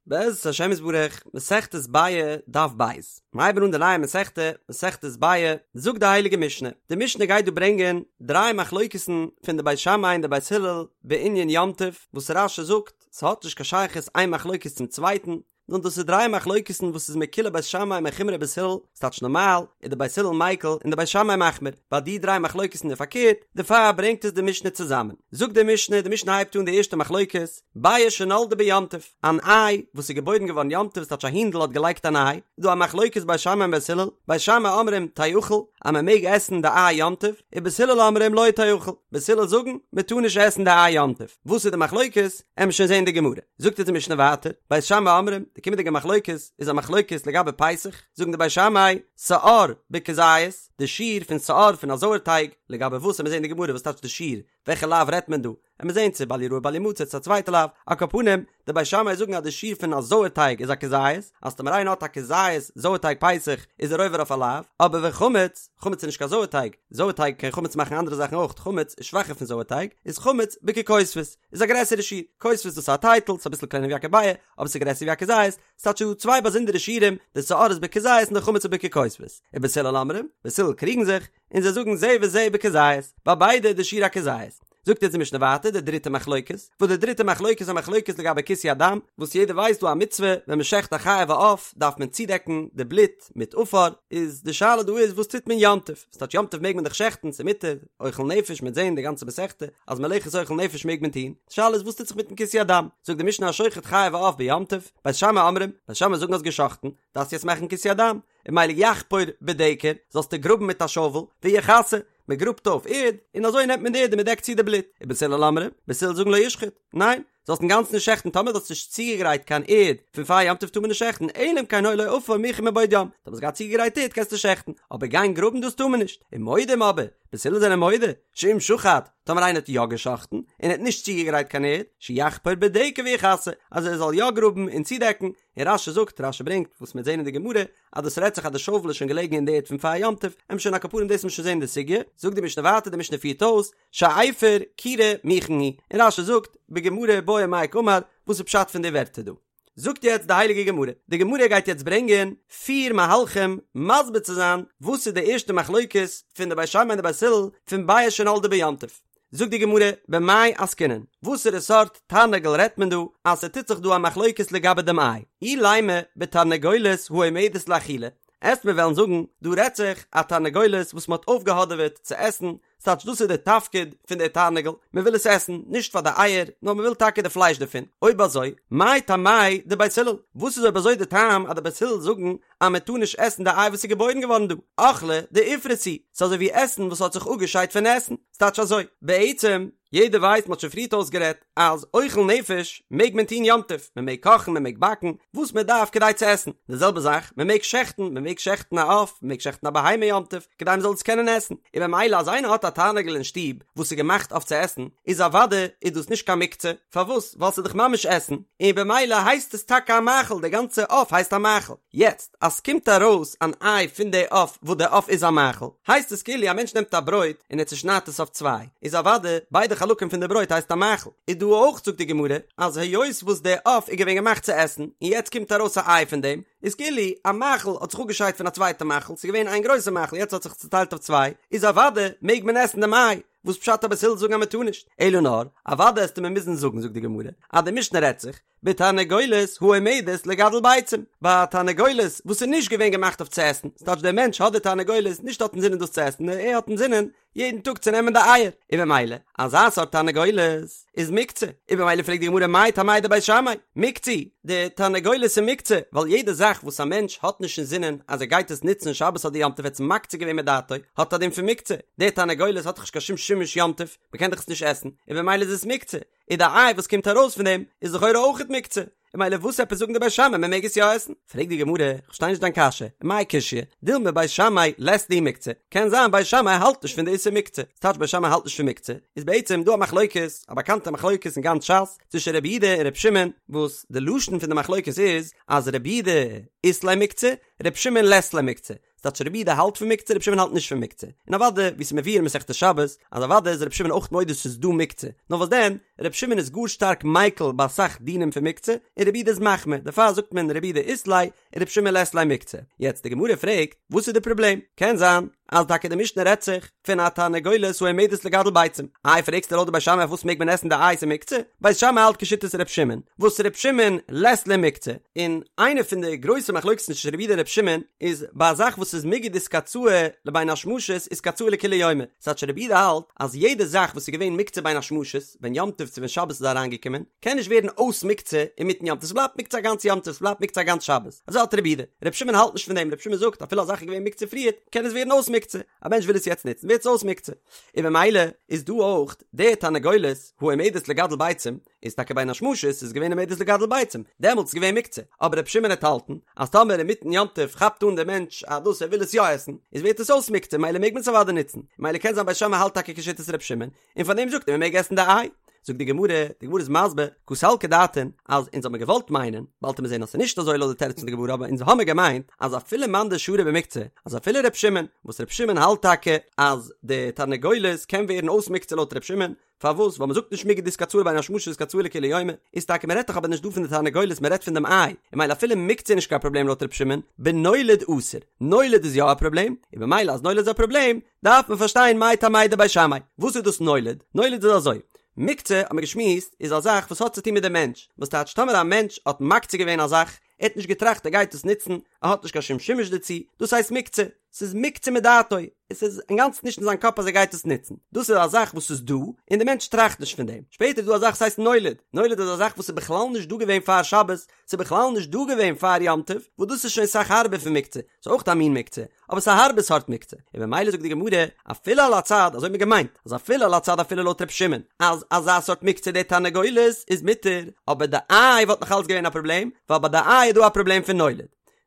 בעזרת השם יתברך, מסכת ביעא, דף ב'. מיר הייבן אן די נייע מסכתא, מסכת ביעא, זאגט די הייליגע משנה, די משנה גייט דא ברענגען דריי מחלוקת'ן פון די בית שמאי און די בית הלל בענין יום טוב, וואס רש"י זאגט, ס'האט נישט קיין שייכות איין מחלוקת צום צווייטן, נאר דאס איז דריי מחלוקת'ן וואס איז מקולי בית שמאי מחומרי בית הלל, ס'טייטש נארמאל איז די בית הלל מיקל און די בית שמאי מחמיר, ביי די דריי מחלוקת'ן איז פארקערט, דערפאר ברענגט עס די משנה צוזאמען. זאגט די משנה, די משנה הייבט אן די ערשטע מחלוקת, ביעא שנולדה ביום טוב, אן איי וואס איז געבוירן געווארן יום טוב, ס'טייטש א הינדל האט געלייגט אן איי, איז דא א מחלוקת בית שמאי און בית הלל, בית שמאי אומרים תאכל, אז מען מעג עסן די איי יום טוב, ובית הלל אומרים לא תאכל, בית הלל זאגן מען טאר נישט עסן די איי יום טוב, וואס איז די מחלוקת, עמיר שוין זען די גמרא, זאגט אונז די משנה ווייטער, בית שמאי אומרים, די קומענדיגע מחלוקת איז א מחלוקת לגבי פסח, זאגן די בית שמאי, שאור בכזית, די שיעור פון שאור פון א זויערטייג, לגבי וואס עמיר זען די גמרא וואס טייטש די שיעור, וועלכע לאו רעדט מען דא? עמיר זעהן צו בל יראה בל ימצא צו א צווייטע לאו, על כל פנים, די בית שמאי זאגן אז די שיעור פון א זויער טייג איז א כזית, אז טאמער איינער האט א כזית זויער טייג פסח איז ער עובר אויף א לאו, אבער וחמץ, חמץ איז נישט קיין זויער טייג, זויער טייג קען חמץ מאכן אנדערע זאכן אויך, חמץ איז שוואכער פון זויער טייג, איז חמץ בככותבת, איז א גרעסערע שיעור, כותבת דאס איז א טייטל, ס'איז אביסל קלענער ווי א כביעה, אבער ס'איז גרעסער ווי א כזית, ס'טייטש ס'דא צוויי באזונדערע שיעורים, די שאור איז בכזית און די חמץ איז בככותבת, ובית הלל אומרים, בית הלל קריגן זיך, און זיי זאגן זה וזה בכזית, ביי ביידע איז די שיעור א כזית. זאגט אונז די משנה ווייטער די דריטע מחלוקת, וואס די דריטע מחלוקת איז א מחלוקת לגבי כיסוי הדם, וואס יעדער ווייסט דא א מצוה ווען מען שעכט א חיה ועוף דארף מען צודעקן די בלוט מיט עפר, איז די שאלה דא איז וואס טוט מען יום טוב, ס'טייטש יום טוב מעג מען דאך שעכטן ס'איז מותר, אוכל נפש מ'עט זעהן די גאנצע מסכתא אז מלאכת אוכל נפש מעג מען טון, די שאלה איז וואס טוט זיך מיטן כיסוי הדם, זאגט די משנה השוחט חיה ועוף ביום טוב, בית שמאי אומרים, בית שמאי זאגן האסט געשאכטן, דארפסט יעצט מאכן כיסוי הדם, און ממילא יחפור בדקר, זאלסטו גראבן מיט א שאוול, ויכסה, מען גראבט אויף ערד, און אזוי נעמט מען די ערד און מען דעקט צו די בלוט, ובית הלל אומרים, בית הלל זאגן לא ישחוט, ניין, זאלסט אינגאנצן נישט שעכטן טאמער דו האסט נישט צוגעגרייט קיין ערד פון פאר יום טוב טאר מען נישט שעכטן, אלא אם כן היה לו עפר מוכן מבעוד יום, טאמער האסט געהאט צוגעגרייט ערד קענסטו שעכטן, אבער גיין גראבן דאס טאר מען נישט, ומודים אבער, בית הלל זענען מודה, שאם שחט, טאמער איינער האט יא געשאכטן, און ער האט נישט צוגעגרייט קיין ערד, שיחפור בדקר ויכסה, אז ער זאל יא גראבן און צודעקן, און רש"י זאגט, רש"י ברענגט, וואס מ'וועט זען אין די גמרא, אז דאס רעדט זיך אז די שאוול איז שוין געלעגן אין די ערד פון פאר יום טוב, עמיר שוין על כל פנים דאס מוז שוין זען אין די סוגיא, זאגט די משנה ווייטער, די משנה פירט אויס, שאפר כירה מוכן הוא, און רש"י זאגט, בגמרא בעי מאי קאמר, וואס איז פשט פון די ווערטער דא? זאגט יעצט די הייליגע גמרא, די גמרא גייט יעצט ברענגען פיר מהלכים מסביר צו זיין וואס איז די ערשטע מחלוקת פון די בית שמאי און די בית הלל פון ביעא שנולדה ביום טוב, זאגט די גמרא, במאי עסקינן, וואסערע סארט תרנגול רעדט מען דא אז ס'טוט זיך דא א מחלוקת לגבי דעם איי? אילימא בתרנגולת העומדת לאכילה, עסט מיר וועלן זאגן, דא רעדט זיך א תרנגולת וואס מ'האט אויפגעהאדעוועט צו עסן, ס'טייטש דאס איז די תפקיד פון די תרנגול, מ'וויל עס עסן, נישט פאר די אייער, נאר מ'וויל טאקע די פלייש דערפון, אויב אזוי, מאי טעמייהו דבית הלל, וואס איז אויב אזוי די טעם אז די בית הלל זאגן אז מען טאר נישט עסן די איי וואס איז געבוירן געווארן דא, אוכלא דאיפרס הוא, ס'איז אזוי ווי עסן וואס האט זיך אפגעשיידט פון עסן, ס'טייטש אזוי, בעצם, יעדער ווייסט, מ'האט שוין פריערט אויסגערעדט, אז אוכל נפש מעג מען טון יום טוב, מען מעג קאכן, מען מעג באקן, וואס מען דארף כדי צו עסן, די זעלבע זאך, מען מעג שעכטן, מען מעג שעכטן א עוף, מען מעג שעכטן א בהמה יום טוב, כדי מען זאל עס קענען עסן, און במילא אז איינער האט א תרנגול אין שטוב וואס איז געמאכט אויף צו עסן, איז אוודאי איז דאס נישט קיין מוקצה, פארוואס? ווייל ס'איז דאך ממש עסן, און במילא הייסט עס טאקע א מאכל, די גאנצע עוף הייסט א מאכל. יעצט, אז ס'קומט ארויס אן איי פון די עוף וואס די עוף איז א מאכל, הייסט עס כאילו א מענטש נעמט א ברויט און ער צושניידט עס אויף צוויי, איז אוודאי ביידע חלקים פון די ברויט הייסט א מאכל. איז דא אויך זאגט די גמרא, אז היות וואס די עוף איז געווען געמאכט צו עסן, און יעצט קומט ארויס א איי פון דעם, איז כאילו א מאכל האט זיך אפגעשיידט פון א צווייטע מאכל, ס'איז געווען איין גרויסע מאכל יעצט האט זיך צוטיילט אויף צוויי, איז אוודאי מעג מען עסן דעם איי. וואס פשט אז בית הלל זאגן אז מען טאר נישט? אלא נאר, אוודאי עסטו מיר מוזן זאגן זאגט די גמרא, אז די משנה רעדט זיך, בתרנגולת העומדת לגדל ביצים, ביי א תרנגולת וואס איז נישט געווען געמאכט אויף צו עסן, ס'טייטש דער מענטש האט די תרנגולת נישט האט אינזינען דאס צו עסן נאר ער האט אינזינען יעדן טאג צו נעמען די אייער, און במילא אזא סארט תרנגולת איז מוקצה, און במילא פרעגט די גמרא מאי טעמייהו דבית שמאי, מוקצה, די תרנגולת איז מוקצה, ווייל יעדע זאך וואס א מענטש האט נישט אינזינען אז ער גייט עס נוצן שבת אדער יום טוב ער האט עס מקצה געווען מדעתו, האט א דין פון מוקצה, די תרנגולת האט דאך נישט קיין שום שימוש יום טוב, מען קען דאך עס נישט עסן, און במילא איז עס מוקצה, און די איי וואס קומט ארויס פון דעם איז לכאורה אויכעט מוקצה, און במילא וואס עפעס זאגן די בית שמאי מען מעג עס יא עסן? פרעגט די גמרא, איך פארשטיי נישט דיין קשיא, ומאי קשיא, דילמא בית שמאי לית להו מוקצה, קען זיין בית שמאי האלט נישט פון די איסור מוקצה, ס'טייטש בית שמאי האלט נישט פון מוקצה, איז בעצם דא א מחלוקת, א באקאנטע מחלוקת אין גאנץ ש"ס, צווישן רבי יהודה און רבי שמעון, וואס די לשון פון די מחלוקת איז אז רבי יהודה אית ליה מוקצה, רבי שמעון לית ליה מוקצה. ס'טייטש רבי יהודה האלט פון מוקצה רבי שמעון האלט נישט פון מוקצה, און אוודאי ווי ס'איז מבואר אין מסכת שבת אז אוודאי איז רבי שמעון אויך מודה ס'איז דא מוקצה, נאר וואס דען רבי שמעון איז גאר שטארק מיקל ביי אסאך דינים פון מוקצה, און רבי יהודה איז מחמיר, דערפאר זאגט מען רבי יהודה אית ליה און רבי שמעון לית ליה מוקצה. יעצט די גמרא פרעגט, וואס איז די פראבלעם? קען זיין אז טאקע די משנה רעדט זיך פון א תרנגולת העומדת לגדל ביצים. איי פרעגסטו לויט די בית שמאי אויף וואס מעג מען עסן די איי ס'איז מוקצה? בית שמאי האלט כשיטת ר' שמעון, וואס ר' שמעון לית ליה מוקצה, און איינע פון די גרויסע מחלוקת'ן צווישן רבי יהודה און ר' שמעון איז ביי א זאך וואס איז מיגו דאיתקצאי לבין השמשות איתקצאי לכולי יומא, ס'טייטש רבי יהודה האלט אז יעדע זאך וואס איז געווען מוקצה בין השמשות, ווען יום טוב צו ווען שבת איז אריינגעקומען, קען נישט ווערן אויס מוקצה אינמיטן יום טוב, ס'בלייבט מוקצה א גאנץ יום טוב, ס'בלייבט מוקצה א גאנץ שבת. אזוי האלט רבי יהודה. רבי שמעון האלט נישט פון דעם, רבי שמעון זאגט אפילו א זאך איז געווען מוקצה פריערט, קען עס ווערן אויס מוקצה. א מענטש וויל עס יעצט נוצן, ווערט עס אויס מוקצה. און במילא איז דא אויך די תרנגולת העומדת לגדל ביצים, איז טאקע בין השמשות איז געווען עומדת לגדל ביצים, דעמאלטס איז געווען מוקצה. אבער רבי שמעון העט האלטן אז טאמער אינמיטן יום טוב כאפט אן דער מענטש אז דאס ער וויל עס יא עסן, איז ווערט עס אויס מוקצה, מילא מעג מען עס אוודאי נוצן. מילא קען זיין בית שמאי האלט טאקע כשיטת רבי שמעון, און פאר דעם זאגט ער מען מעג עסן די איי. זאגט די גמרא, די גמרא איז מסביר, קא סלקא דעתין, אז אונז האמיר געוואלט מיינען, באלד וועט מען זען אז ס'איז נישט אזוי לויט די תירוץ פון די גמרא, אבער אונז האמיר געמיינט אז אפילו מאן דשרי במוקצה, אז אפילו ר' שמעון, וואס ר' שמעון האלט טאקע אז די תרנגולת קען ווערן אויס מוקצה לויט ר' שמעון, פארוואס? ווייל מ'זאגט נישט מיגו דאיתקצאי לבין השמשות איתקצאי לכולי יומא, איז טאקע מ'רעדט דאך אבער נישט דא פון די תרנגולת מ'רעדט פון דעם איי, און מילא אפילו מוקצה איז נישט קיין פראבלעם לויט ר' שמעון, בנולד אסור, נולד איז יא א פראבלעם, און במילא אז נולד איז א פראבלעם, דארף מען פארשטיין מאי טעמא דבית שמאי, וואס איז דאס נולד? נולד איז אזוי, מוקצה האט מען געשמועסט איז א זאך וואס האט צו טון מיט דעם מענטש, וואס טייטש טאמער א מענטש האט מקצה געווען א זאך, ער האט נישט געטראכט ער גייט עס נוצן, ער האט נישט קיין שום שימוש דערצו, דאס הייסט מוקצה, ס'איז מוקצה מדעתו, עס איז אינגאנצן נישט אין זיין קאפ אז ער גייט עס נוצן, דאס איז א זאך וואס איז דא, און דער מענטש טראכט נישט פון דעם, שפעטער איז דא א זאך וואס הייסט נולד, נולד איז א זאך וואס איז בכלל נישט דא געווען פאר שבת, ס'איז בכלל נישט דא געווען פאר יום טוב, וואס דאס איז שוין אסאך הארבער פון מוקצה, ס'איז אויך א מין מוקצה, אבער ס'איז א הארבע סארט מוקצה, און במילא זאגט די גמרא, אפילו על הצד, אזוי האט מען געמיינט, אז אפילו על הצד אפילו לויט ר' שמעון, אז אזא סארט מוקצה די תרנגולת איז מותר, אבער די איי וואלט נאך אלץ געווען א פראבלעם, ווייל ביי די איי איז דא א פראבלעם פון נולד.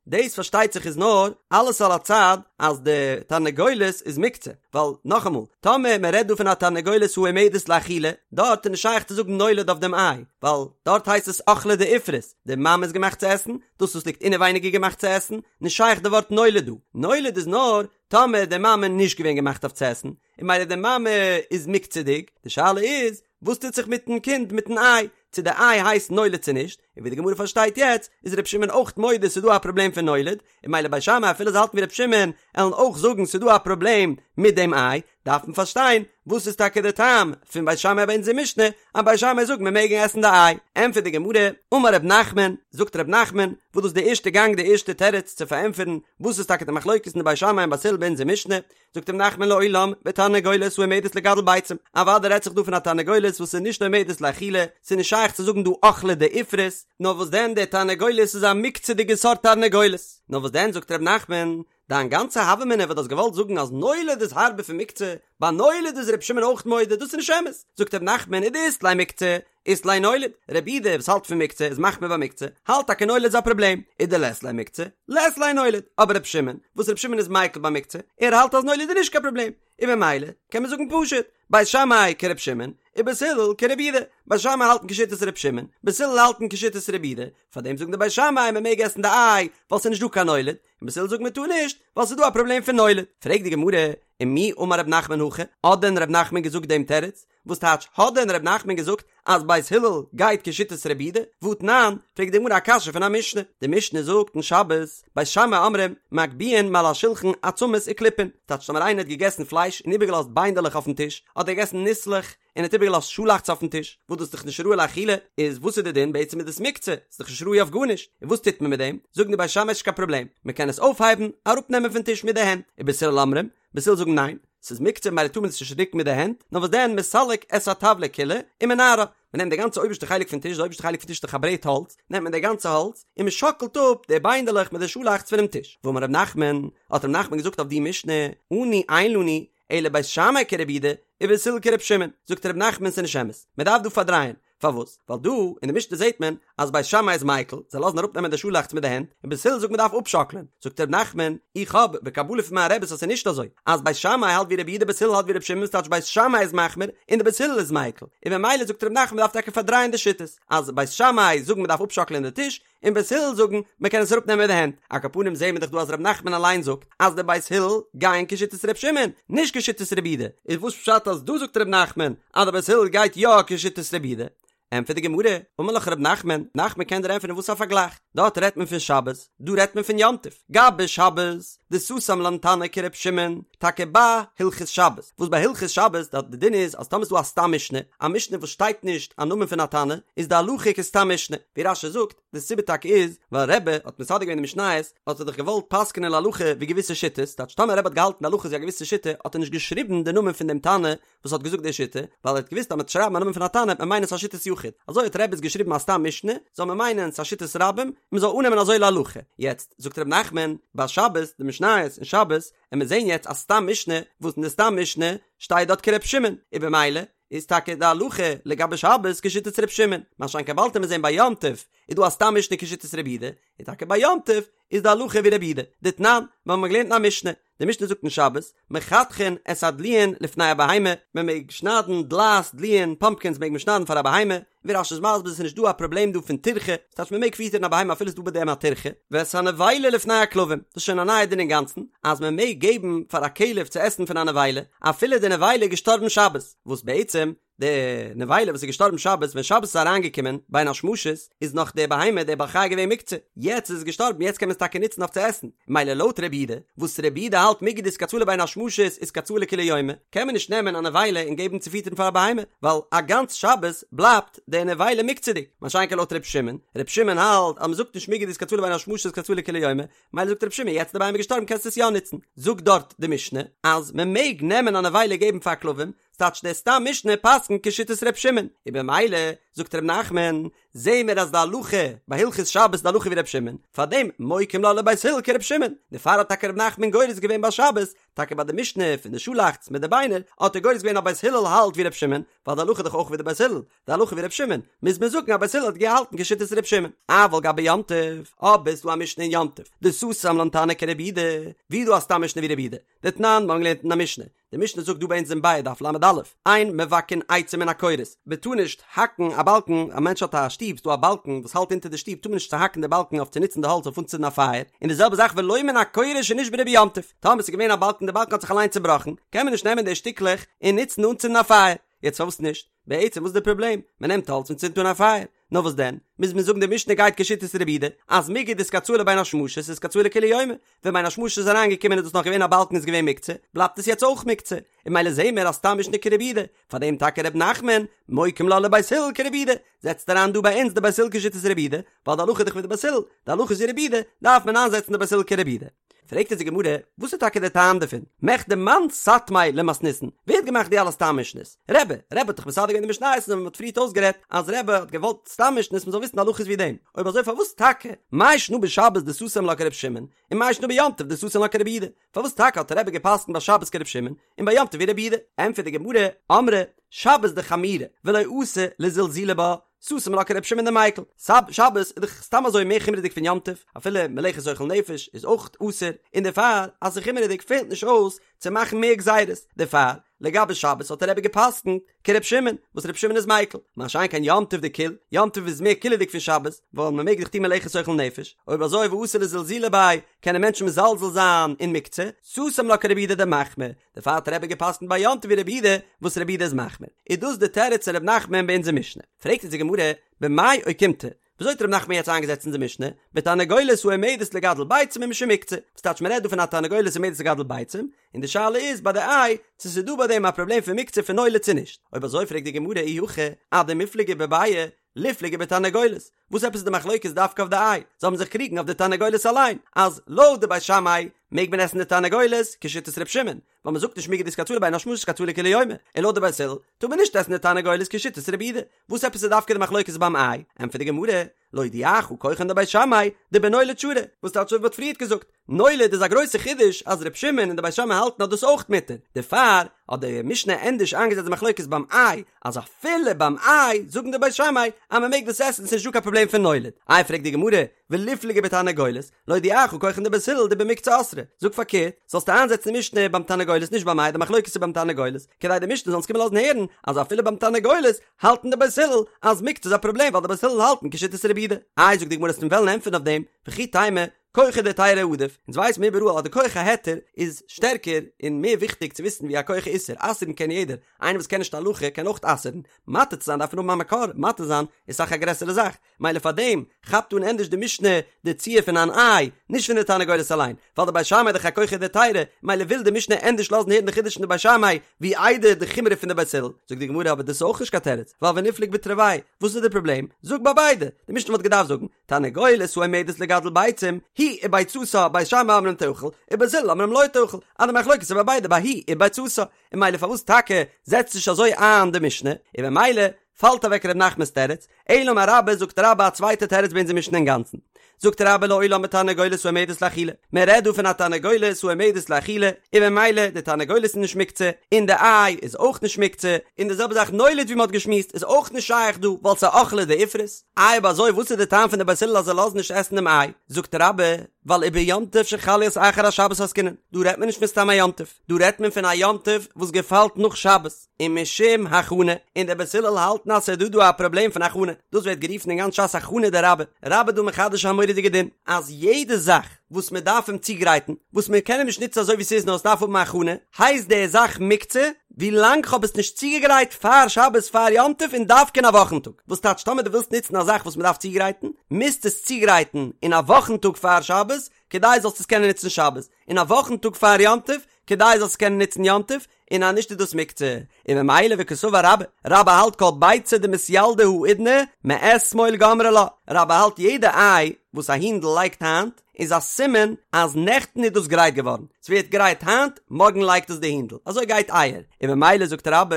דאס פארשטייט זיך איז נאר אלעס על הצד אז די תרנגולת איז מוקצה, ווייל נאכאמאל, טאמער מען רעדט דא פון א תרנגולת העומדת לאכילה, דארט איז נישט שייך צו זאגן נולד אויף דעם איי, ווייל דארט הייסט עס אוכלא דאיפרת, די מאמע איז געמאכט צו עסן, דאס וואס ליגט אינעווייניג איז געמאכט צו עסן, נישט שייך די ווארט נולד דא, נולד איז נאר טאמער די מאמע נישט געווען געמאכט אויף צו עסן, און מילא די מאמע איז מוקצה'דיג, די שאלה איז וואס טוט זיך מיטן קינד מיטן איי, צו די איי הייסט נולד צו נישט, און ווי די גמרא פארשטייט יעצט איז ר' שמעון אויך מודה ס'איז דא א פראבלעם פון נולד, און מילא בית שמאי אפילו זיי האלטן ווי ר' שמעון עלן אויך זאגן ס'איז דא א פראבלעם מיט דעם איי, דארף מען פארשטיין וואס איז טאקע די טעם פון בית שמאי ביי אונזער משנה אז בית שמאי זאגט מען מעג עסן די איי, ענטפערט די גמרא, אמר ר' נחמן, זאגט ר' נחמן, וואס דאס איז די ערשטע גאנג די ערשטע תירוץ צו פארענטפערן וואס איז טאקע די מחלוקת אין די בית שמאי און בית הלל ביי אונזער משנה, זאגט ר' נחמן לעולם בתרנגולת העומדת לגדל ביצים, אוודאי רעדט זיך דא פון א תרנגולת וואס איז נישט עומדת לאכילה, ס'איז נישט שייך צו זאגן דא אוכלא דאיפרת, נאר וואס דען די תרנגולת איז א מוקצה'דיגע סארט תרנגולת, נאר וואס דען זאגט ר' נחמן, דיין גאנצע הוה אמינא וואס דו האסט געוואלט זאגן אז נולד איז הארבער פון מוקצה, ביי נולד איז ר' שמעון אויך מודה, דאס איז נישט אמת, זאגט ר' נחמן ודאית ליה מוקצה, אית ליה נולד, רבי יהודה וואס האלט פון מוקצה איז מחמיר ביי מוקצה, האלט טאקע נולד איז א פראבלעם, ודלית ליה מוקצה, לית ליה נולד, אבער ר' שמעון, וואס ר' שמעון איז מיקל ביי מוקצה, ער האלט אז נולד איז נישט קיין פראבלעם, און במילא קען מען זאגן פשוט, בית שמאי כר' שמעון, ובית הלל כרבי יהודה, בית שמאי האלטן כשיטת ר' שמעון, בית הלל האלטן כשיטת רבי יהודה, פארדעם זאגן די בית שמאי מען מעג עסן די איי, ווייל ס'איז נישט דא קיין נולד, און בית הלל זאגן מען טאר נישט, ווייל ס'איז דא א פראבלעם פון נולד. פרעגט די גמרא, ומי אמר ר' נחמן הכי, האט דען ר' נחמן געזאגט דעם תירוץ? וואס טייטש האט דען ר' נחמן געזאגט אז בית הלל גייט כשיטת רבי יהודה? והתנן, פרעגט די גמרא א קשיא פון א משנה, די משנה זאגט אין שבת, בית שמאי אומרים, מגביהין מעל השולחן עצמות וקליפין, טייטש טאמער איינער האט געגעסן פלייש און איבערגעלאזט ביינדעלעך אויפן טיש, אדער געגעסן ניסלעך און האט איבערגעלאזט שאלאכץ אויפן טיש, וואס דאס איז דאך נישט ראוי לאכילה, איז וואס איז די דין? בעצם איז דאס מוקצה, ס'איז דאך נישט ראוי אויף גארנישט, און וואס טוט מען מיט דעם? זאגן די בית שמאי ס'נישט קיין פראבלעם, מען קען עס אויפהייבן, אראפנעמען פון טיש מיט די הענט, ובית הלל אומרים, בית הלל זאגן ניין, ס'איז מוקצה ממילא טאר מען עס נישט רוקן מיט די הענט, נאר וואס דען מסלק את הטבלא כולה ומנערה, מען נעמט די גאנצע אויבערשטע חלק פון טיש, די אויבערשטע חלק פון טיש איז דאך א ברעט האלץ, נעמט מען די גאנצע האלץ און מען שאקלט אפ די ביינדעלעך מיט די שאלאכץ פונעם טיש. ואמר ר' נחמן, האט ר' נחמן געזאגט אויף די משנה, אנו אין לנו אלא בית שמאי כרבי יהודה ובית הלל כר' שמעון, זאגט ר' נחמן ס'איז נישט אמת, מען דארף דא פארדרייען, פארוואס? ווייל דא אין די משנה זעט מען אז בית שמאי איז מיקל, זיי לאזן אראפנעמען די שאלאכץ מיט די הענט, און בית הלל זאגט מען דארף אפשאקלען. זאגט ר' נחמן, איך האב בקבלה פון מיין רעבעס אז ס'איז נישט אזוי, אז בית שמאי האלט ווי רבי יהודה בית הלל האלט ווי רבי שמעון ס'טייטש בית שמאי איז מחמיר און די בית הלל איז מיקל, און ממילא זאגט ר' נחמן מ'דארף טאקע פארדרייען די שיטות, אז בית שמאי זאגן מ'דארף אפשאקלען די טיש, און בית הלל זאגן מען קען עס אראפנעמען מיט די הענט, על כל פנים זעהן מיר דאך דא אז ר' נחמן אליין זאגט אז די בית הלל גייען כשיטת ר' שמעון, נישט כשיטת רבי יהודה, איז וואס פשט אז דא זאגט ר' נחמן אז די בית הלל גייט יא כשיטת רבי יהודה? ענטפערט די גמרא, אמר לך ר' נחמן, נחמן קען דיר ענטפערן וואס א פארגלייך, דארט רעדט מען פון שבת, דא רעדט מען פון יום טוב, גבי שבת, דסתם לן תנא כר' שמעון, טאקע ביי הלכות שבת, וואס ביי הלכות שבת דארט די דין איז אז טאמער איז דא א סתם משנה, א משנה וואס שטייט נישט א נאמען פון א תנא, איז די הלכה כסתם משנה, ווי רש"י זאגט, די סיבה טאקע איז, ווייל רבי האט מסדר געווען די משניות, האט ער דאך געוואלט פסק'נען להלכה ווי געוויסע שיטות, טייטש טאמער רבי האט געהאלטן די הלכה איז ווי א געוויסע שיטה, האט ער נישט געשריבן די נאמען פון דעם תנא וואס האט געזאגט די שיטה, ווייל ער האט געוואוסט אז מ'וועט שרייבן א נאמען פון א תנא וועט מען מיינען ס'איז א שיטת יחיד, אזוי האט רבי עס געשריבן א סתם משנה, זאל מען מיינען ס'איז א שיטת רבים, און מ'זאל אננעמען אזוי להלכה. יעצט, זאגט ר' נחמן, ביי שבת, די משניות אין שבת, עמיר זעהן יעצט א סתם משנה, וואס אין די סתם משנה שטייט דארט כר' שמעון, און במילא איז טאקע די הלכה לגבי שבת כשיטת ר' שמעון, מה שאין כן באלד עמיר זעהן ביי יום טוב איז דא א סתם משנה כשיטת רבי יהודה, און טאקע ביי יום טוב איז די הלכה ווי רבי יהודה, דתנן, מיר האבן געלערנט אין א משנה, די משנה זאגט אין שבת, מחתכין את הדלועין לפני הבהמה, מען מעג שניידן דלעת, דלועין, פאמפקינס מעג מען שניידן פאר א בהמה, ווי רש"י איז מסביר ס'איז נישט דא א פראבלעם דא פון טירחה, ס'טייטש מען מעג פיטערן א בהמה אפילו ס'איז דא ביי דעם א טירחה, ואת הנבילה לפני הכלבים, דאס איז שוין א נייע דין אינגאנצן, אז מען מעג געבן פאר א כלב צו עסן פון א נבילה, אפילו די נבילה איז געשטארבן שבת, וואס בעצם די נבילה וואס איז געשטארבן שבת ווען שבת איז אריינגעקומען בין השמשות איז נאך די בהמה די בעל חי געווען מוקצה יעצט איז עס געשטארבן יעצט קען מען עס טאקע נוצן אויף צו עסן מילא לויט רבי יהודה וואס רבי יהודה האלט מיגו דאיתקצאי לבין השמשות איתקצאי לכולי יומא קען מען נישט נעמען א נבילה און געבן צו פיטערן פאר א בהמה ווייל א גאנץ שבת בלייבט די נבילה מוקצה'דיג מה שאין כן לויט רבי שמעון רבי שמעון האלט אז מען זאגט נישט מיגו דאיתקצאי לבין השמשות איתקצאי לכולי יומא מילא זאגט רבי שמעון יעצט די בהמה געשטארבן קענסטו עס יא נוצן זאגט דארט די משנה אז מען מעג נעמען א נבילה געבן פאר כלבים ס'טייטש דער סתם משנה פסק'נט כשיטת ר' שמעון, און במילא, זאגט ר' נחמן, זעהן מיר אז די הלכה ביי הלכות שבת איז די הלכה ווי ר' שמעון, פארדעם מוקים לה לבית הלל כר' שמעון, דערפאר האט טאקע ר' נחמן גורס געווען ביי שבת, טאקע ביי די משנה פון די שאלאכץ מיט די ביינער, האט ער גורס געווען אז בית הלל האלט ווי ר' שמעון, ווייל די הלכה איז דאך אויך ווי די בית הלל, די הלכה ווי ר' שמעון, מוז מען זאגן אז בית הלל האט געהאלטן כשיטת ר' שמעון. אבל גבי יום טוב, אבער ס'דא א משנה אין יום טוב, דסתם לן תנא כרבי יהודה, ווי איז דא א סתם משנה ווי רבי יהודה? דתנן, מיר האבן געלערנט אין א משנה, די משנה זאגט דא ביי אונז אין ביעא דף ל"א, אין מבקעין עצים מן הקורות, מען טאר נישט האקן א באלקן, א מענטש האט א שטוב, ס'דא א באלקן וואס האלט אונטער די שטוב, טאר מען נישט צוהאקן די באלקן אויף צו נוצן די האלץ אויף אנצינדן א פייער, און די זעלבע זאך ולא מן הקורה שנשברה ביום טוב, טאמער ס'איז געווען א באלקן די באלקן האט זיך אליין צובראכן, קען מען נישט נעמען די שטיקלעך און נוצן אנצינדן א פייער, יעצט פארוואס נישט? בעצם וואס איז די פראבלעם? מען נעמט האלץ און צינדט אן א פייער. נאר וואס דען? מוז מען זאגן די משנה גייט כשיטת רבי יהודה, אז מיגו דאיתקצאי לבין השמשות איתקצאי לכולי יומא, ווען בין השמשות איז אריינגעקומען איז דאס נאך געווען א באלקן איז געווען מוקצה, בלייבט עס יעצט אויך מוקצה, און ממילא זעהן מיר אז סתם משנה כרבי יהודה, פארדעם טאקע ר' נחמן, מוקים לה לבית הלל כרבי יהודה, זעצט אריין דא ביי אונז די בית הלל כשיטת רבי יהודה, ווייל די הלכה איז דאך ווי די בית הלל, די הלכה איז ווי רבי יהודה, דארף מען איינזעצן די בית הלל כרבי יהודה. פרעגט אונז די גמרא, וואס איז טאקע דער טעם דערפון? מכדי מאן סתמיה למתניתין, ווער האט געמאכט די אלע סתם משנה'ס? רבי, רבי האט דאך מסדר געווען די משניות און מען האט פריערט אויסגערעדט אז רבי האט געוואלט סתם משנה'ס מען זאל וויסן הלכות ווי דעם, אויב אזוי פארוואס טאקע מאי שנא בשבת דסתם לה כרבי שמעון, און מאי שנא ביום טוב דסתם לה כרבי יהודה? פארוואס טאקע האט רבי געפסקנט ביי שבת כרבי שמעון און ביי יום טוב ווי רבי יהודה? ענטפערט די גמרא, אמרי, שבת דחמירא ולא אתי לזלזולי בה, סתם לה כרבי שמעון דמיקל, שבת איז דאך סתם אזוי מער חומרה'דיג פון יום טוב, אפילו מלאכת אוכל נפש איז אויך אסור, און דערפאר אז ס'איז חומרה'דיג פעלט נישט אויס צו מאכן מער גזירות, דערפאר לגבי שבת האט רבי געפסקנט כרבי שמעון, וואס רבי שמעון איז מיקל, מה שאין כן יום טוב דקיל, יום טוב איז מער קילעדיג פון שבת, ווייל מ'מעג דאך טון מלאכת אוכל נפש, אויב אזוי ואתי לזלזולי ביה, קענען מענטשן מזלזל זיין אין מוקצה, סתם לה כרבי יהודה דמחמיר, דערפאר האט רבי געפסקנט ביי יום טוב ווי רבי יהודה, וואס רבי יהודה איז מחמיר. איז דאס די תירוץ פון ר' נחמן ביי אונזער משנה? פרעגט אונז די גמרא, במאי אוקימתא, וויאזוי האט ר' נחמן יעצט איינגעזעצט אונזער משנה, בתרנגולת העומדת לגדל ביצים ומשום מוקצה, וואס טייטש מ'רעדט דא פון א תרנגולת העומדת לגדל ביצים, און די שאלה איז ביי די איי, צו ס'איז דא ביי דעם א פראבלעם פון מוקצה פון נולד צו נישט. אויב אזוי פרעגט די גמרא אי הכי, אדמיפלגי בביעא, ליפלגו בתרנגולת, וואס עפעס איז די מחלוקת דווקא אויף די איי? זיי האבן זיך קריגן אויף די תרנגולת אליין, אז לויט די בית שמאי מעג מען עסן די תרנגולת כשיטת ר' שמעון, ווייל מען זאגט נישט מיגו דאיתקצאי לבין השמשות איתקצאי לכולי יומא, און לויט די בית הלל טאר מען נישט עסן די תרנגולת כשיטת רבי יהודה, וואס עפעס איז דווקא די מחלוקת ביים איי? ענטפערט די גמרא, להודיעך כוחן דבית שמאי דבנולד שרי, וואס טייטש אזוי ווי מ'האט פריערט געזאגט? נולד איז א גרויסע חידוש אז ר' שמעון און די בית שמאי האלטן אז דאס איז אויך מותר, דערפאר האט די משנה ענדערש איינגעזעצט די מחלוקת ביים איי, אז אפילו ביים איי זאגן די בית שמאי אז מען מעג דאס עסן ס'נישט דא קיין פראבלעם פון נולד. איי פרעגט די גמרא, וליפלגו בתרנגולת, להודיעך כחן דבית הלל דבמוקצה אסרי, זאג פארקערט, זאלסטו איינזעצן די משנה ביים תרנגולת נישט ביים איי, די מחלוקת איז ביים תרנגולת, כדי די משנה זאל אונז קומען לאזן הערן אז אפילו ביים תרנגולת האלטן די בית הלל אז מוקצה איז א פראבלעם ווייל די בית הלל האלטן כשיטת רבי יהודה. איי זאגט די גמרא וועסט וועלן ענטפערן אויף דעם, וכי תימא, כוחא דהיתרא עדיף, אונז ווייסן מיר איבעראל אז די כח ההיתר איז שטערקער און מער וויכטיג צו וויסן ווי א כח האיסור, אסר'ן קען יעדער, איינער וואס קען נישט הלכה קען אויך אסר'ן, מתיר צו זיין דארף מען האבן א מקור, מתיר זיין איז אסאך א גרעסערע זאך, מילא פאר דעם כאפט אן ענדערש די משנה די ציור פון אן איי, נישט פון די תרנגולת אליין, ווייל די בית שמאי איז דאך א כוחא דהיתרא, מילא וויל די משנה ענדערש לאזן הערן די חידוש פון די בית שמאי ווי איידער די חומרא פון די בית הלל, זאגט די גמרא אבער דאס איז אויך נישט קיין תירוץ, ווייל וניפלוג בתרוייהו, וואס איז די פראבלעם? זאג ביי ביידע, די משנה וואלט געדארפט זאגן, תרנגולת העומדת לגדל ביצים, היא וביצתה, בית שמאי אומרים תאכל, ובית הלל אומרים לא תאכל, אז די מחלוקת איז ביי ביידע ביי היא וביצתה, און מילא פארוואס טאקע זעצט נישט אזוי איין די משנה, און ממילא פאלט אוועק ר' נחמנ'ס תירוץ, אלא אמר רבה זאגט רבה א צווייטע תירוץ ביי אונזער משנה אינגאנצן. זאגט רבה לעולם בתרנגולת העומדת לאכילה, מען רעדט דא פון א תרנגולת העומדת לאכילה, און ממילא די תרנגולת איז נישט מוקצה, און די איי איז אויך נישט מוקצה, און די זעלבע זאך נולד ווי מען האט געשמועסט איז אויך נישט שייך דא ווייל ס'איז אוכלא דאיפרת. איי אויב אזוי וואס איז די טעם פון די בית הלל אז זיי לאזן נישט עסן דעם איי? זאגט רבה, ווייל וביום טוב שחל להיות אחר השבת עסקינן, דא רעדט מען נישט פון סתם א יום טוב, דא רעדט מען פון א יום טוב וואס געפאלט נאך שבת, ומשום הכנה, און די בית הלל האלטן אז ס'איז דא דא א פראבלעם פון הכנה, דאס ווערט גערופן אין גאנץ ש"ס הכנה דרבה, רבה דא מחדש א מורא'דיגע דין, אז יעדע זאך וואס מען דארף אים צוגרייטן, וואס מען קען אים נישט נוצן אזוי ווי ס'איז נאר עס דארף האבן א הכנה, הייסט די זאך מוקצה, ווי לאנג כ'האב עס נישט צוגעגרייט פאר שבת פאר יום טוב און דווקא אין א וואכן טאג, וואס טייטש טאמער דו ווילסט נוצן א זאך וואס מען דארף צוגרייטן, מוזטו עס צוגרייטן אין א וואכן טאג פאר שבת, כדי זאלסט עס קענען נוצן שבת, אין א וואכן טאג פאר יום טוב, כדי זאלסט עס קענען נוצן יום טוב, און אז נישט איז דאס מוקצה, און ממילא וקסבר רבה, רבה האלט כל ביצה דמתילדא האידנא מאתמול גמרי לה, רבה האלט יעדע איי וואס א הינדל לייגט היינט איז א סימן אז נעכטן איז דאס גרייט געווארן, ס'ווערט גרייט היינט, מארגן לייגט עס די הינדל, אזוי גייט אייער, און ממילא זאגט רבה,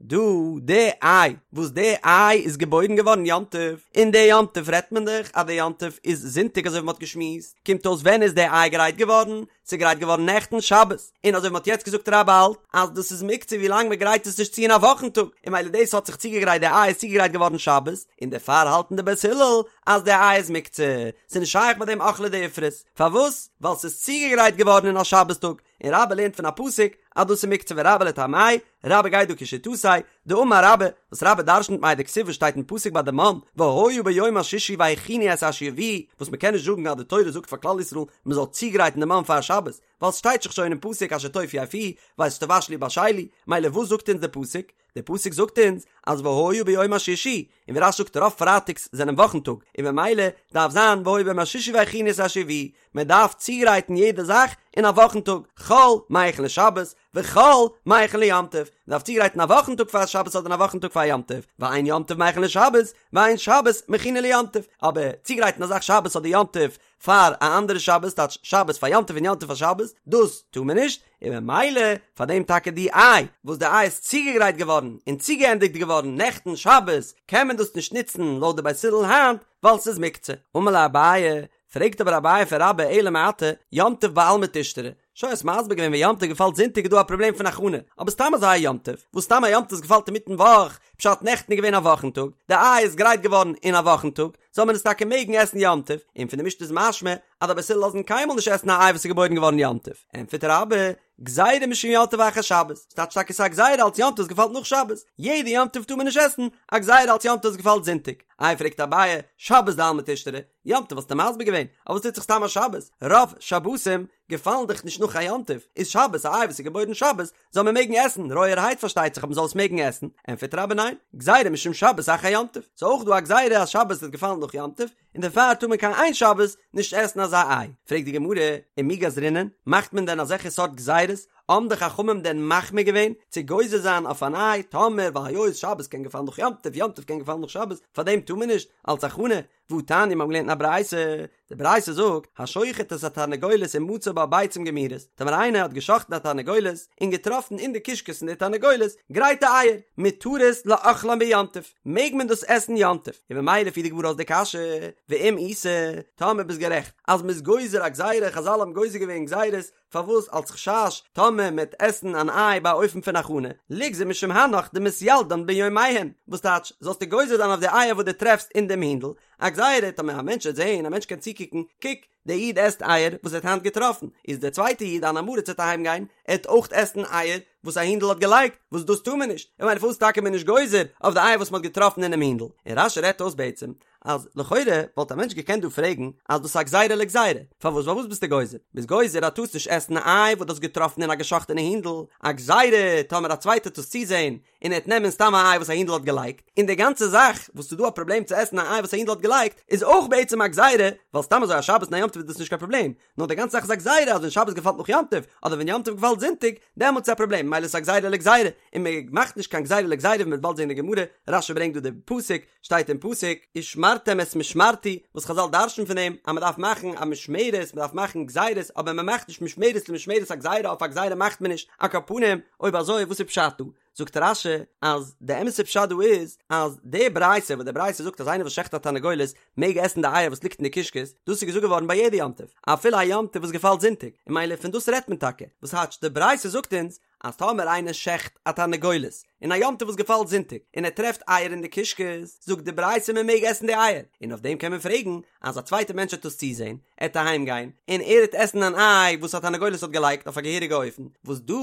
דא די איי וואס די איי איז געבוירן געווארן יום טוב, און די יום טוב רעדט מען דאך אז די יום טוב איז זונטאג אזוי ווי מ'האט געשמועסט, קומט אויס ווען איז די איי גרייט געווארן? ס'איז גרייט געווארן נעכטן שבת, און אזוי ווי מ'האט יעצט געזאגט רבה האלט אז דאס איז מוקצה ווי לאנג מ'גרייט עס נישט צו אין א וואכן טאג, און מילא דאס האט זיך צוגעגרייט די איי איז צוגעגרייט געווארן שבת, און דערפאר האלטן די בית הלל אז די איי איז מוקצה, ס'איז נישט שייך ביי דעם אוכלא דאיפרת, פארוואס? ווייל ס'איז צוגעגרייט געווארן אין א שבת טאג, און רבה לערנט פון א פסוק אז דאס איז מוקצה ורבה לטעמיה, רבה גייט דא כשיטתו, דאמר רבה, וואס רבה דרשנ'ט מאי דכתיב וואס שטייט אין פסוק ביי די מן, והיה ביום השישי והכינו את אשר יביאו, וואס מ'קען נישט זאגן אז די תורה זאגט פאר כלל ישראל מ'זאל צוגרייטן די מן פאר שבת, ווייל ס'שטייט דאך שוין אין פסוק אשר תאפו אפו, ואת אשר תבשלו בשלו, מילא וואס זאגט אונז די פסוק? די פסוק זאגט אונז אז והיה ביום השישי, און ווי רש"י זאגט רוב פרייטאגס זענען וואכן טאג, און ממילא דארף זיין והיה ביום השישי והכינו את אשר יביאו, מען דארף צוגרייטן יעדע זאך אין א וואכן טאג, חול מכין לשבת, וחול מכין ליום טוב, מען דארף צוגרייטן א וואכן טאג פאר שבת אדער א וואכן טאג פאר יום טוב, ואין יום טוב מכין לשבת, ואין שבת מכינה ליום טוב, אבער צוגרייטן א זאך שבת אדער יום טוב פאר א אנדערע שבת, טייטש שבת פאר יום טוב און יום טוב פאר שבת, דאס טאר מען נישט, און ממילא פאר דעם טאקע די איי וואס די איי איז צוגעגרייט געווארן און צוגעענדיגט געווארן נעכטן שבת, קען מען דאס נישט נוצן לויט די בית הלל היינט, ווייל ס'איז מוקצה. אמר ליה אביי, פרעגט אבער אביי פון רבה אלא מעתה, יום טוב בעלמא תשתרי, שוין האסט מסביר געווען ווען יום טוב געפאלט זונטאג איז דא א פראבלעם פון הכנה, אבער סתם אזא יום טוב, וואס סתם א יום טוב געפאלט אינמיטן וואך, פשט נעכטן איז געווען א וואכן טאג, די איי איז גרייט געווארן אין א וואכן טאג, זאל מען עס טאקע מעגן עסן יום טוב, און פון די משנה איז משמע אז די בית הלל לאזן קיינמאל נישט עסן א איי וואס איז געבוירן געווארן יום טוב, ענטפערט רבה, גזירה משום יום טוב אחר שבת, ס'טייטש טאקע ס'איז א גזירה אלץ יום טוב געפאלט נאך שבת, יעדע יום טוב טאר מען נישט עסן, א גזירה אלץ יום טוב געפאלט זונטאג, איי פרעגט אביי, שבת דעלמא תשתרי, יום טוב האסטו מסביר געווען, אבער וואס טוט זיך סתם א שבת, רוב שבתים געפאלן דאך נישט נאך א יום טוב, איז שבת א איי וואס איז געבוירן שבת, זאל מען מעגן עסן, רויערהייט פארשטייט זיך אבער מ'זאל עס מעגן עסן, ענטפערט רבה ניין, גזירה משום שבת אחר יום טוב, ס'איז אויך דא א גזירה אז שבת וועט געפאלן נאך יום טוב, און דערפאר טאר מען קיין איין שבת נישט עסן אזא איי, פרעגט די גמרא, ומי גזרינן, מאכט מען דען אזעלכע סארט גזירות, האבן די חכמים דען מחמיר געווען צו גוזר זיין אויף אן איי, טאמער ווייל היות שבת קען געפאלן נאך יום טוב, יום טוב קען געפאלן נאך שבת, פארדעם טאר מען נישט, אלץ הכנה, והתניא מיר האבן געלערנט אין א ברייתא, די ברייתא זאגט, השוחט את התרנגולת ומצא בה ביצים גמורות, טאמער איינער האט גע'שחט'ן א תרנגולת און געטראפן אין די קישקעס פון די תרנגולת גרייטע אייער, מותרות לאכלן ביום טוב, מעג מען דאס עסן יום טוב, און ממילא פירט די גמרא אויס די קשיא. ואם איתא, טאמער ביסט גערעכט אז מ'איז גוזר א גזירה, חזל האבן גוזר געווען גזירות, פארוואס אלס חשש טאמער מ'עט עסן אן איי ביי א אופן פון הכנה, ליגזור משום הנך דמתילדן ביומיהן, וואס טייטש, זאלסטו גוזר זיין אויף די אייער וואס דו טרעפסט אין דעם הינדל, א גזירה, טאמער א מענטש וועט זען, א מענטש קען צוקוקן, קוק, דער איד עסט אייער וואס ער האט היינט געטראפן, איז דער צווייטער איד אן עם הארץ וועט אהיים גיין, ער וועט אויך עסן אייער וואס א הינדל האט געלייגט, וואס דאס טאר מען נישט, און ממילא פארוואס טאקע מען נישט גוזר אויף די אייער וואס מען האט געטראפן אינעם הינדל? און רש"י רעדט אויס בעצם אז לכאורה וואלט א מענטש געקענט דא פרעגן אז דאס איז א גזירה לגזירה, פארוואס ווייל וואס ביסטו גוזר? ביסט גוזר אז טארסט נישט עסן א איי וואס דו האסט געטראפן אין א געשאכטענע הינדל, א גזירה טאמער א צווייטער וועט עס צוזען און ער וועט נעמען סתם א איי וואס א הינדל האט געלייגט, און די גאנצע זאך וואס ס'איז דא א פראבלעם צו עסן א איי וואס א הינדל האט געלייגט איז אויך בעצם א גזירה, ווייל סתם אזוי א שבת און א יום טוב איז דאס נישט קיין פראבלעם, נאר די גאנצע זאך איז א גזירה אז ווען שבת געפאלט נאך יום טוב, אדער ווען יום טוב געפאלט זונטאג, דעמאלטס איז א פראבלעם, ממילא איז עס א גזירה לגזירה, און מען מאכט נישט קיין גזירה לגזירה ווי מען וועט באלד זען אין די גמרא, רש"י ברענגט דא די פסוק, שטייט אין פסוק, ושמרתם את משמרתי, וואס חזל דרש'ן פון דעם אז מען דארף מאכן א משמרת, מען דארף מאכן גזירות, אבער מען מאכט נישט משמרת למשמרת א גזירה אויף א גזירה מאכט מען נישט, על כל פנים, אויב אזוי וואס איז פשט דא? זאגט רש"י אז די אמת'ע פשט דא איז אז די ברייתא וואס די ברייתא זאגט אז איינער וואס שעכט א תרנגולת מעג עסן די אייער וואס ליגט אין די קישקעס, דאס איז געזאגט געווארן ביי יעדע יום טוב, אפילו א יום טוב וואס געפאלט זונטאג, און ממילא פון דאס רעדט מען טאקע, וואס טייטש די ברייתא זאגט אונז אז טאמער איינער שעכט א תרנגולת אין א יום טוב וואס געפאלט זונטאג און ער טרעפט אייער אין די קישקעס, זאגט די ברייתא מען מעג עסן די אייער, און אויף דעם קען מען פרעגן אז א צווייטער מענטש וועט דאס צוזען, ער וועט אהיים גיין און ער וועט עסן אן איי וואס א תרנגולת האט געלייגט אויף א געהעריגע אופן, וואס דא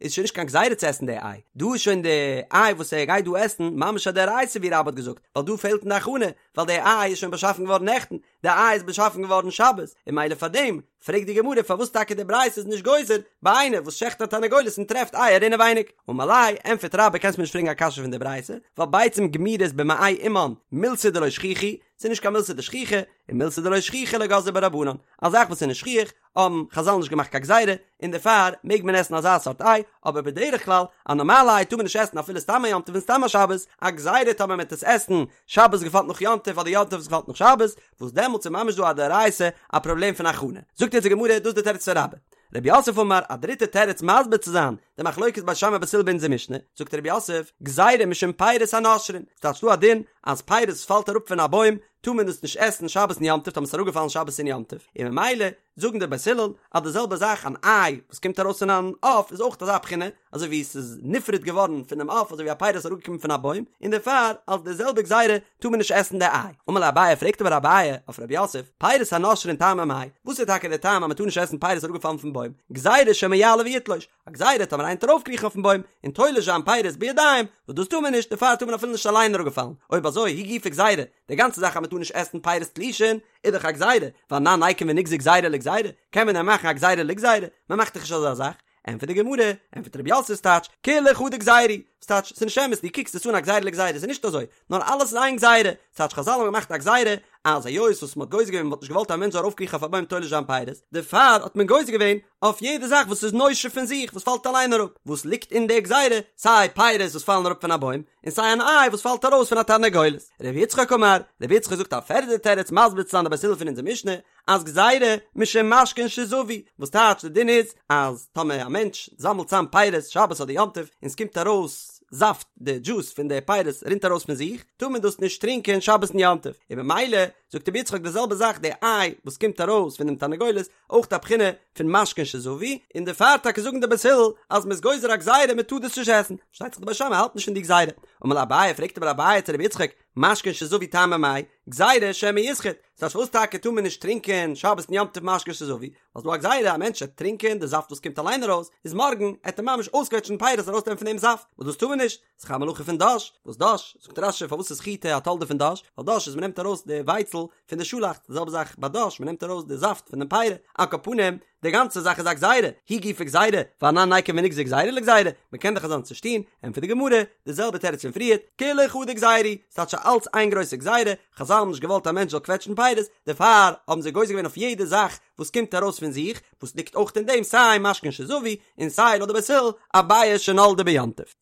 איז שוין נישט קיין גזירה צו עסן די איי, דא איז שוין די איי וואס ער גייט דא עסן ממש א דאורייתא ווי רבה האט געזאגט, ווייל דא פעלט אין די הכנה, ווייל די איי איז שוין באשאפן געווארן נעכטן, די איי איז באשאפן געווארן שבת, און ממילא פאר דעם פרעגט די גמרא פארוואס טאקע די ברייתא איז נישט גוזר ביי איינער וואס שעכט א תרנגולת און טרעפט אייער אינעווייניג, אמר ליה, ענטפערט רבה קענסט מיר נישט פרעגן א קשיא פון די ברייתא, ווייל ביצים גמורות במעי אמן מילתא דלא שכיחא, ס'איז נישט קיין מילתא דשכיחא, און מילתא דלא שכיחא לא גזרו בה רבנן, א זאך וואס איז נישט שכיח, האבן חזל נישט געמאכט קיין גזירה, און דערפאר מעג מען עסן אזא סארט איי, אבער בדרך כלל א נארמאלע איי טאר מען נישט עסן אפילו סתם א יום טוב און סתם א שבת, א גזירה טאמער מען וועט עס עסן שבת געפאלט נאך יום טוב אדער יום טוב וואס געפאלט נאך שבת, וואס דעמאלטס איז ממש דא א דאורייתא א פראבלעם פון הכנה. זאגט יעצט די גמרא, דאס איז די תירוץ פון רבה. רב יוסף אמר, א דריטע תירוץ מסביר צו זיין די מחלוקת בית שמאי בית הלל ביי אונזער משנה, זאגט רב יוסף, גזירה משום פירות הנושרין, ס'טייטש דא א דין אז פירות וואס פאלט אראפ פון א בוים טאר מען עס נישט עסן שבת און יום טוב טאמער ס'איז אראפגעפאלן שבת און יום טוב, און ממילא זאגן די בית הלל אז די זעלבע זאך אן איי וואס קומט ארויס פון אן עוף איז אויך אזא בחינה אזוי ווי ס'איז נפרד געווארן פונעם עוף אזוי ווי א פירות איז אראפגעקומען פון א בוים און דערפאר אלס די זעלבע גזירה טאר מען נישט עסן די איי. אמר ליה אביי פרעגט אבער אביי אויף רב יוסף, פירות הנושרין טעמא מאי, וואס איז טאקע די טעם אז מען טאר נישט עסן פירות אראפגעפאלן פון בוים, גזירה שמא יעלה ויתלוש, א גזירה טאמער איינער וועט ארויפקריכן אויפן בוים און תולש זיין פירות בידיים, וואס דאס טאר מען נישט, דערפאר טאר מען אפילו נישט אליין אראפגעפאלן, אויב אזוי היא גופא גזירה, די גאנצע זאך אז מען טאר נישט עסן פירות תלושין איז דאך א גזירה, ואנן ניקום ונגזור גזירה לגזירה, קען מען דען מאכן א גזירה לגזירה? מען מאכט דאך נישט אזא זאך. ענטפערט די גמרא, ענטפערט רב יוסף ס'טייטש, כולה חדא גזירה היא, ס'טייטש, ס'איז נישט אמת, דו קוקסט עס אן א גזירה לגזירה, ס'איז נישט אזוי, נאר אלעס איז איין גזירה, ס'טייטש חזל האבן געמאכט א גזירה, אז היות וואס מ'האט גוזר געווען מ'האט נישט געוואלט א מענטש זאל ארויפקריכן אויף א בוים תולש זיין פירות, דערפאר האט מען גוזר געווען אויף יעדע זאך וואס איז נושר פון זיך, וואס פאלט אליין אראפ, וואס ליגט אין די גזירה, סיי פירות וואס פאלן אראפ פון א בוים, און סיי אן איי וואס פאלט ארויס פון א תרנגולת. ר' יצחק אמר, ר' יצחק זאגט א פערדע תירוץ מסביר צו זיין די בית הלל פון אונזער משנה, אז גזירה משום משקין שזבו, וואס טייטש די דין איז אז טאמער א מענטש זאמלט צאם פירות שבת אדער יום טוב און ס'קומט ארויס זאפט די דזשוס פון די פירות רינט ארויס פון זיך טאר מען דאס נישט טרינקען שבת און יום טוב, און ממילא זאגט רבי יצחק די זעלבע זאך די איי וואס קומט ארויס פון דעם תרנגולת אויך א בחינה פון משקין שזבו, און דערפאר טאקע זאגן די בית הלל אז מ'איז גוזר א גזירה מ'טאר דאס נישט עסן, פארשטייט זיך די בית שמאי האלט נישט פון די גזירה, אמר ליה אביי פרעגט אבער אביי צו רבי יצחק משקין שזבו טעמא מאי, גזירה שמא יסחוט, ס'טייטש פארוואס טאקע טאר מען נישט טרינקען שבת און יום טוב משקין שזבו, ווייל ס'דא א גזירה א מענטש וועט טרינקען די זאפט וואס קומט אליין ארויס, איז מארגן עט ער ממש אויסקוועטשן פירות ארויסנעמען פון דעם זאפט, וואס דאס טאר מען נישט, ס'איז דאך א מלאכה פון דש, וואס דש? זאגט רש"י פארוואס איז חיטה א תולדה פון דש, ווייל דש איז מ'נעמט ארויס די ווייצל פון די שאלאכץ, די זעלבע זאך ביי דש, מ'נעמט ארויס די זאפט פון דעם פירי, על כל פנים, די גאנצע זאך איז א גזירה, היא גופא גזירה, ואנן ניקום ונגזור גזירה לגזירה, מ'קען דאך אזאנס נישט טון, ענטפערט די גמרא, די זעלבע תירוץ פון פריערט, כולה חדא גזירה היא, ס'טייטש אלץ איין גרויסע גזירה, חזל האבן נישט געוואלט א מענטש זאל קוועטשן פירות, דערפאר האבן זיי גוזר געווען אויף יעדע זאך וואס קומט ארויס פון זיך, וואס ליגט אויך אין דעם סיי משקין שזבו, און סיי לויט די בית הלל, א ביעא שנולדה ביום טוב.